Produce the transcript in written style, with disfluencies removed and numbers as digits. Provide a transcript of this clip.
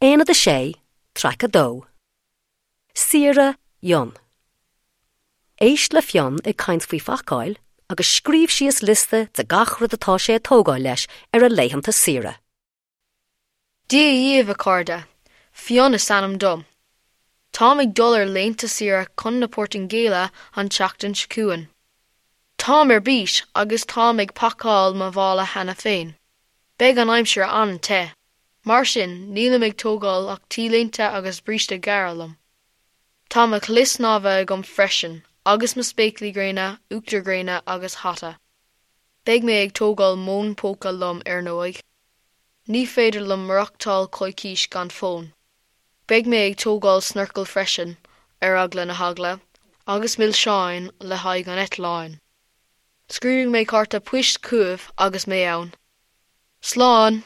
Aonad 6, Traic 2. Saoire Fhionn. Éist le Fionn ag caint faoi phacáil agus scríobh síos liosta de gach rud atá sé ag tógáil leis ar a laethanta saoire. Dia dhaoibh, a chairde! Fionn is ainm dom. Táim ag dul ar laethanta saoire chun na Portaingéile an tseachtain seo chugainn. Táim ar bís agus táim ag pacáil mo mhála cheana féin. Beidh an aimsir an-te. Mar sin, nílim ag tógáil ach t-léinte agus bríste gearr liom. Tá mo chulaith snámha agam freisin, agus mo spéaclaí gréine, uachtar gréine agus hata. Beidh mé ag tógáil m'fhón póca liom, ar ndóigh. Ní féidir liom maireachtáil coicís gan fón. Beidh mé ag tógáil snorcal freisin, ar eagla na heagla, agus milseáin le haghaidh an eitleáin. Scríobfaidh mé cárta poist chugaibh agus mé ann. Slán!